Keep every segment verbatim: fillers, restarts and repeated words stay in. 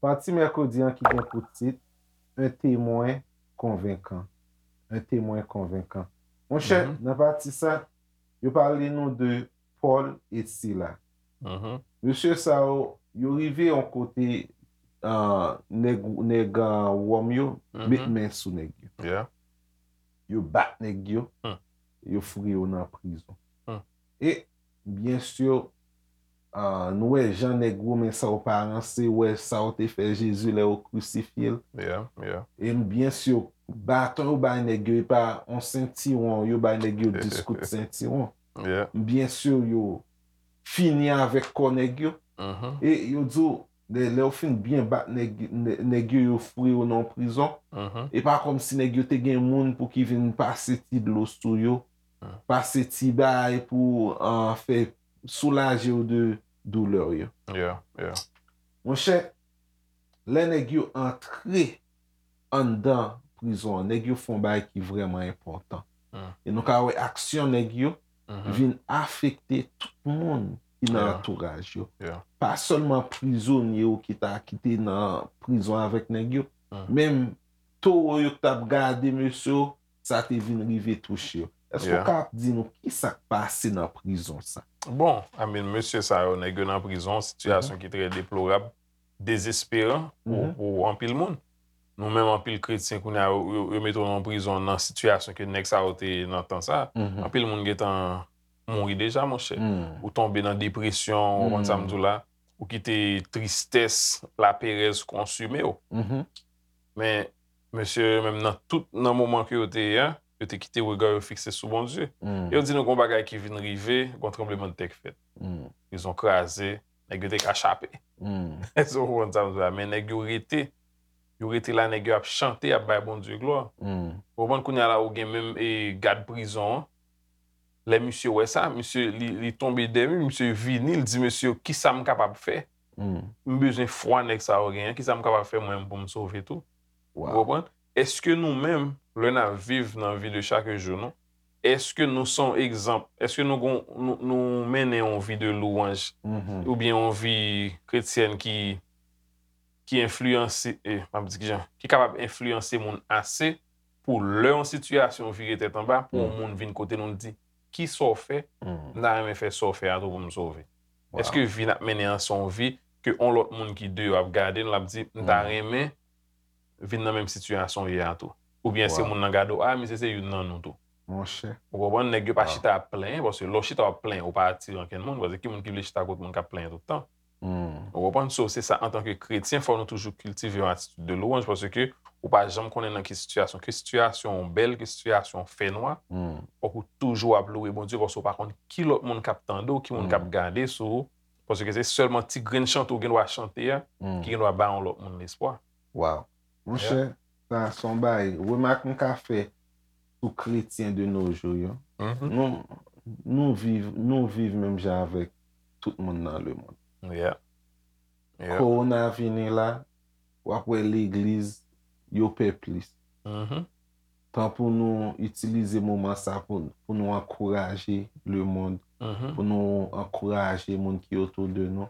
Pati mèkredi an ki gen pou tit Un témoin convaincant. Un témoin convaincant. Monchè, nan pati sa, yo pale nou de Pòl e Sila. Mesye sa yo, yo rive yon kote, ah, nèg, nèg, ah, Wòm yo met men sou nèg yo. Yo bat nèg yo, yo foure yo nan prizon. E, byen si, ah, nou wè jan nèg Women sa yo pa ranse, wè sa yo te fè Jezi lè yo krisifye l. E byen si, baton yo bay nèg yo, e pa yon sentiwon, yo bay nèg yo dis kout sentiwon. Byen si, yo fini avèk kò nèg yo. E yo di w, lè, lè yo fin byen bat nèg, nè-, nèg yo, yo foure yo nan prizon. E pa kòmsi nèg yo te gen moun pou ki vin pase ti dlo sou yo, pase ti bagay pou, ah, fè soulaje yo de doulè yo. Monchè, lè nèg yo antre anndan prizon an, nèg yo fè yon bagay ki vrèman enpòtan. E nou ka wè aksyon nèg yo vin afekte tout moun ki nan antouraj yo. Pa sèlman prizonye yo ki ta, ki te nan prizon avèk nèg yo, menm towo yo ki t ap gade mesye yo, sa te vin rive touche yo. Èske w ka di nou ki sa k pase nan prizon sa? Bon, I mean, mesye sa yo, nèg yo nan prizon, sitiyasyon ki trè deplorab, dezesperan pou, pou anpil moun. Nou menm, anpil kretyen kounye a, yo, yo, yo mete w nan prizon nan sitiyasyon ke nèg sa yo te nan tan sa. Anpil moun gentan mouri deja, monchè. Ou tonbe nan depresyon, ou konprann sa m di w la. Ou kite tristès, laperèz konsime w. Men, mesye yo menm nan tout, nan moman ke yo te ye a, yo te kite rega yo fikse sou Bondye. E yo di nou gon bagay ki vin rive, gon tranblemanntè k fèt. Prizon kraze, nèg yo te ka chape. Èske w konprann sa m di w la? Men nèg yo rete. Yo rete la, nèg yo ap chante, ap bay Bondye glwa. Ou konprann kounye a la, ou gen menm, e, gad prizon an. Lè misye wè sa, misye, li, li tonbe dèmi, misye vini, li di, "Mesye, kisa m kapab fè? M bezwen fwa nèg sa yo genyen, kisa m kapab fè mwen menm pou m sove tou?" Ou konprann? Èske nou menm, lè n ap viv nan vi de chak jou nou, èske nou se yon egzanp? Èske nou gon, nou, nou mennen yon vi de louwanj, oubyen yon vi kretyèn ki, ki enfliyanse, e, m ap di kijan, ki kapab enfliyanse moun ase pou lè yon sitiyasyon vire tèt anba, pou yon moun vin kote nou, l di, "Kisa w fè? M ta renmen fè sa w fè a tou pou m sove." Èske vi n ap mennen an se yon vi ke yon lòt moun ki deyò ap gade n, l ap di, "M ta renmen vin nan menm sitiyasyon w ye a tou." Oubyen se moun nan gade w, "A, misye se youn nan nou tou." Monchè. Ou konprann? Nèg yo pa chita ap plenyen, paske lè w chita w ap plenyen, ou pa atire ankenn moun, paske ki moun ki vle chita kot moun k ap plenyen tout tan? Ou konprann? So, se sa, antanke kretyen, fò nou toujou kiltive yon atitid de louwanj, paske ou pa janm konnen nan ki sitiyasyon, ke sitiyasyon w bèl, ke sitiyasyon w fènwa, fòk ou toujou ap louwe Bondye, paske ou pa konn ki lòt moun k ap tande w, ki moun k ap gade sou ou, paske se sèlman ti grenn chante w gen dwa chante a, ki gen dwa ba yon lòt moun lespwa. Waw. Monchè, sa se yon bagay, remak m ka fè sou kretyen de nos jours yo. Nou, nou viv, nou viv menm jan avèk tout moun nan lemonn. Kowona vini la, w ap wè legliz, yo pè plis. Tan pou nou itilize moman sa pou, pou nou ankouraje lemonn, pou nou ankouraje moun ki otou de nou.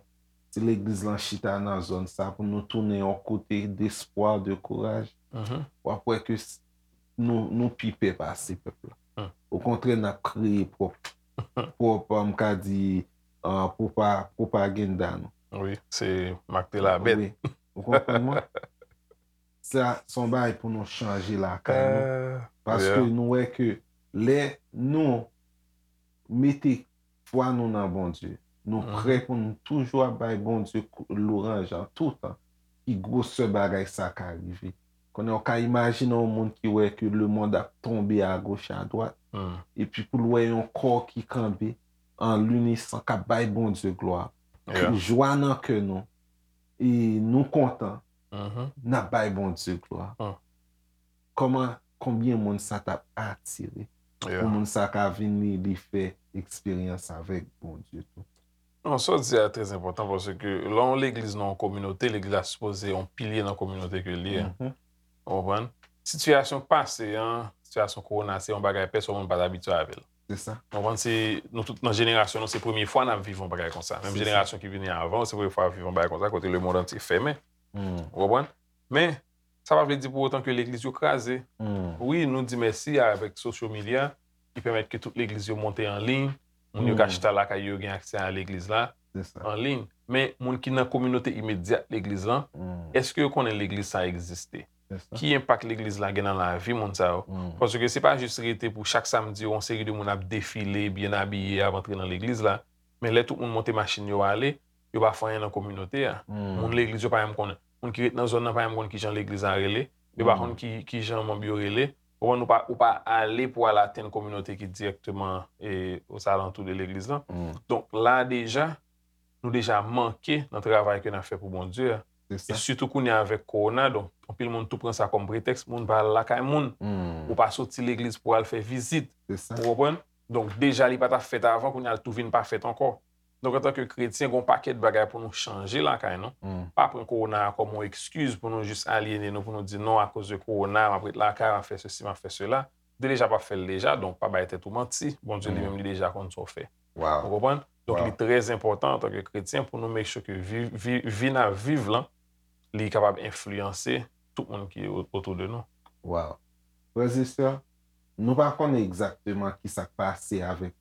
Si legliz lan chita nan zòn sa, pou nou tounen yon kote despwa, de kouraj, w ap wè ke s-, nou, nou pi pè pase pèp la. Okontrè, n ap kreye pwòp, pwòp, m ka di, ah, pwopa-, pwopaganda nou. Wi, se mak te labèt. Wi. Ou konprann mwen? Sa, se yon bagay pou nou chanje lakay nou. Paske nou wè ke lè nou mete fwa nou nan Bondye, nou prè pou nou toujou ap bay Bondye kou-, louwanj an toutan, ki gwosè bagay sa ka rive. Konnen w ka imajine yon moun ki wè ke lemonn ap tonbe agoch adwat, epi pou l wè yon kò ki kanpe an linisan, k ap bay Bondye glwa. Jwa nan kè nou, e nou kontan, n ap bay Bondye glwa. Kòman, konbyen moun sa t ap atire pou moun sa ka vin li, li fè eksperyans avèk Bondye tou? Non, sa w di a trè enpòtan, paske lè yon legliz nan yon kominote, legliz la sipoze yon pilye nan kominote ke l ye. Ou konprann? sitiyasyon k pase an, sitiyasyon kowona, se yon bagay pèsòn moun pa t abitye avè l. Se sa. Ou konprann? Se, nou tout nan jenerasyon nou, se premye fwa n ap viv yon bagay konsa. Menm Se sa. Jenerasyon ki vini avan, se premye fwa yo ap viv yon bagay konsa, kote lemonn antye fèmen. Hmm. Ou konprann? Men, sa pa vle di pou otan ke legliz yo kraze. Hmm. Wi, nou di mèsi avèk social media, ki pèmèt ke tout legliz yo monte an liy, moun yo ka Hmm. chita lakay yo, gen aksè a legliz la, Se sa. an liy. Men, moun ki nan kominote imedyat legliz lan, Hmm. èske yo konnen legliz sa egziste? Se sa. Ki enpak legliz la gen nan lavi moun sa yo? Hmm. Paske se pa jis rete pou chak samdi yon seri de moun ap defile, byen abiye, ap antre nan legliz la. Men lè tout moun monte machin yo ale, yo pa fè anyen nan kominote a. Hmm. Moun legliz yo pa menm konnen. Moun ki ret nan zòn nan pa menm konn kijan legliz la rele. Yo pa Hmm. konn ki, kijan manm yo rele. Ou konprann, ou pa, ou pa ale pou al atenn kominote ki dirèkteman e, ozalantou de legliz lan. Hmm. Donk la deja, nou deja manke nan travay ke n ap fè pou Bondye a. Se E sa. sitou kounye a avèk kowona, donk anpil moun tou pran sa kòm pretèks, moun pa al lakay moun. Hmm. Ou pa soti legliz pou al fè vizit. Se sa. Ou konprann? Donk deja li pa t ap fèt avan, kounye a l tou vin pa fèt ankò. Donk antanke kretyen, gen yon pakèt bagay pou nou chanje lakay nou. Hmm. Pa pran kowona a kòm yon ekskiz pou nou jis alyene nou, pou nou di non, akoz de kowona, m ap ret lakay, m ap fè sesi, m ap fè sela. Ou te deja p ap fè l deja, donk pa bay tèt ou manti. Bondye li Mm. menm li deja konn sa w fè. Ou Wow. konprann? Donk Wow. Li trè enpòtan antanke kretyen pou nou make sure ke vi, vi, vi n ap viv lan, li kapab enfliyanse tout moun ki o- otou de nou. Wow. Frè e sè, nou pa konnen egzakteman ki sa k pase avèk,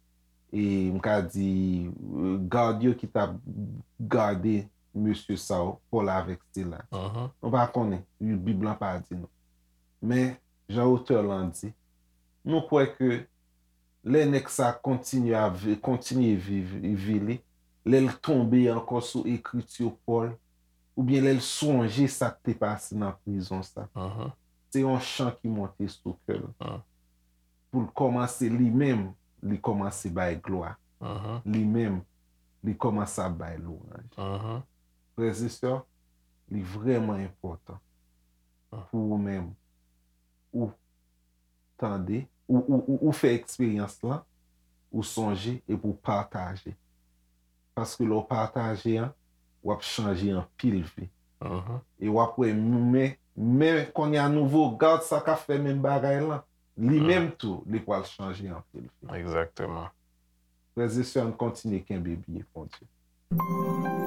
e m ka di, e, gad yo ki t ap gade mesye sa yo, Pòl avèk Sila. Mhm. Nou pa konnen, Bib lan pa di nou. Men, jan otè lan di, nou kwè ke lè nèg sa kontinye ap vi- kontinye viv vi li, lè l tonbe ankò sou ekriti Pòl, oubyen lè l sonje sa k te pase nan prizon sa, Mhm. se yon chan ki monte sou kè l. Mm. Pou l kòmanse li menm, li kòmanse bay glwa. Mhm. Li menm, li kòmanse ap bay lwanj. Mhm. Frè e sè, li vrèman enpòtan Mm. pou ou menm, ou tande, ou, ou, ou, ou fè eksperyans lan, ou sonje epi ou pataje. Paske lè w pataje an, w ap chanje anpil vi. Mhm. E w ap wè, men, men kounye a nouvo gad sa k ap fè menm bagay lan, li Mm. menm tou, li pral chanje anpil vi. Egzakteman. Frè e sè, ann kontinye kenbe pye Bondye.